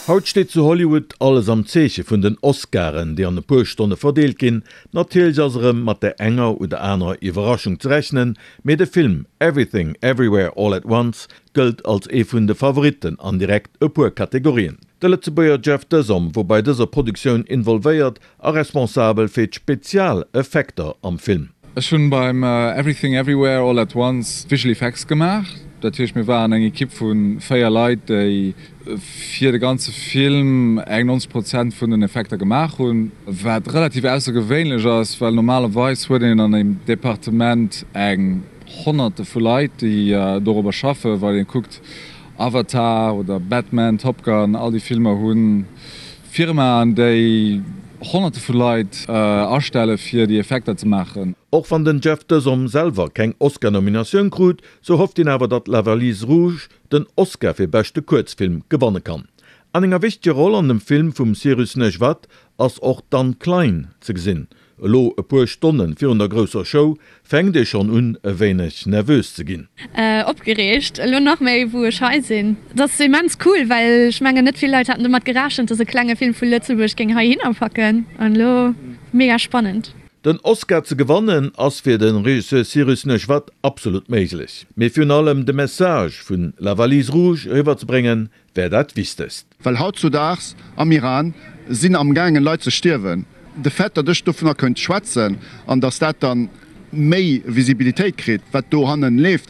Haut steet zu Hollywood alles am Zeeche vun den Oscaren, déi an e puer Stonne verdeelt ginn. Natierlech ass erëm mat der enger oder anerer Iwwerraschung ze rechnen, mee de Film Everything Everywhere All At Once gëllt als ee vun de Favoritten an direkt e puer Kategorien. De Lëtzebuerger Jeff Desom wor bei dëser Produktioun involvéiert a responsabel fir d'Spezialeffekter am Film. Ech hunn beim Everything Everywhere All At Once d'Visual Effects gemaach. Dat heescht mir waren eng Equipe vu 4 Leit déi fir de ganze Film eng 90 Prozent vun den Effekter gemaach hunn, wat relativ aussergewéinlech ass, well normalerweis huet een an engem Departement eng Honnerte vu Leit déi dorobber schaffen. Wann ee kuckt Avatar oder Batman, Top Gun, all déi Filmer hunn Firmaen, déi Honnerte vu Leit astelle fir déi Effekter ze maachen. Och wann den Jeff Desom selwer keng Oscar-Nominatioun krut, sou hofft hien awer, datt La Valise Rouge den Oscar fir beschte Kuerzfilm gewanne kann. An enger wichteger Roll an dem Film vum Cyrus Neshvad ass och d'Anne Klein ze gesinn. Elo, e puer Stonne virun der grousser Show, fänkt ee schonn un, e wéineg nervös ze ginn. Opgereegt, elo nach méi wou ech hei sinn. Et ass immens cool, well ech mengen net vill Leit haten domat gerechent, dass e klenge Film vu Lëtzebuerg géing heihinner packen an elo mega spannend. Den Oscar ze gewannen ass fir de Regisseur Cyrus Neshvad absolut méiglech, mee virun allem de Message vun La Valise Rouge eriwwer ze bréngen, wär dat Wichtegst. Well hautzudaags am Iran sinn amgaangen Leit ze stierwen. De Fait, datt ech dovunner kënnt schwätzen an datt dat dann méi Visibilitéit kritt, wat dohannen leeft,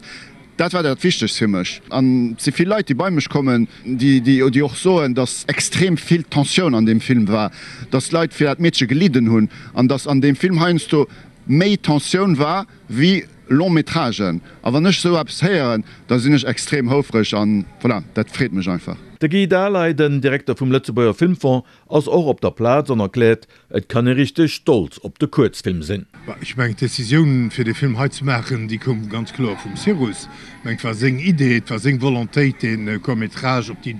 dat war dat Wichtegst fir mech. An et si vill Leit, déi bei mech kommen, déi och soen, datt extrem vill Tensioun an deem Film war, datt Leit fir dat Meedche gelidden hunn an datt an deem Film heiansdo méi Tensioun war wéi Long-métragen. A wann ech esou eppes héieren, da sinn ech extrem houfreg an voilà, dat freet mech einfach. De Guy Dahleij, den Direkter vum Lëtzebuerger Filmfong, ass och op der Plaz an erkläert, Et kann ee richteg stolz op de Kuerzfilm sinn. Ech mengen, d'Decisioun, fir dee Film hei ze maachen, déi koum ganz kloer vum Cyrus. Ech mengen, et war seng Idee, et war seng Volontéit, dee Court-métrage op déi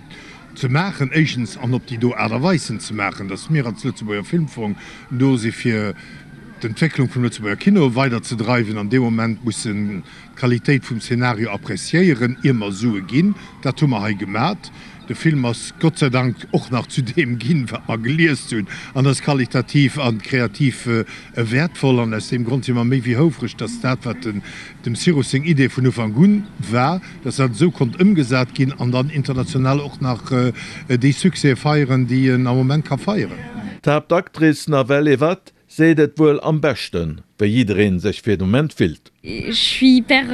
ze maachen, éischtens, an op déi do Aart a Weis en ze maachen, datt mir als Lëtzebuerger Filmfong do si fir d'Entwécklung vum Lëtzebuerger Kino weider ze dreiwen. An dee Moment mussen d'Qualitéit vum Szenario appréciéieren, ier mer Sue ginn. Dat hu mer hei gemat. De Film ass Gott sei Dank och nach zu deem ginn, wat mer geliest hunn, an ass qualitativ a kreativ wäertvoll. An aus deem Grond si mer méi wéi houfreg, dass dat, wat dem Cyrus seng Idee vun Ufank un war, dass dat esou konnt ëmgesat ginn an dann international och nach déi Succèse feieren, déi en am Moment ka feieren. D'Haaptactrice Nawel Evat seet et wuel am beschten, wéi jiddereen sech fir de Moment fillt. Je suis hyper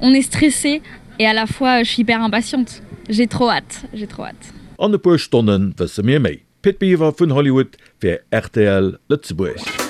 on est stressé et à la fois je suis hyper impatiente, j'ai trop hâte, j'ai trop hâte. An e puer Stonne wësse mir méi. Pit Biwer vun Hollywood fir rtl Lëtzebuerg.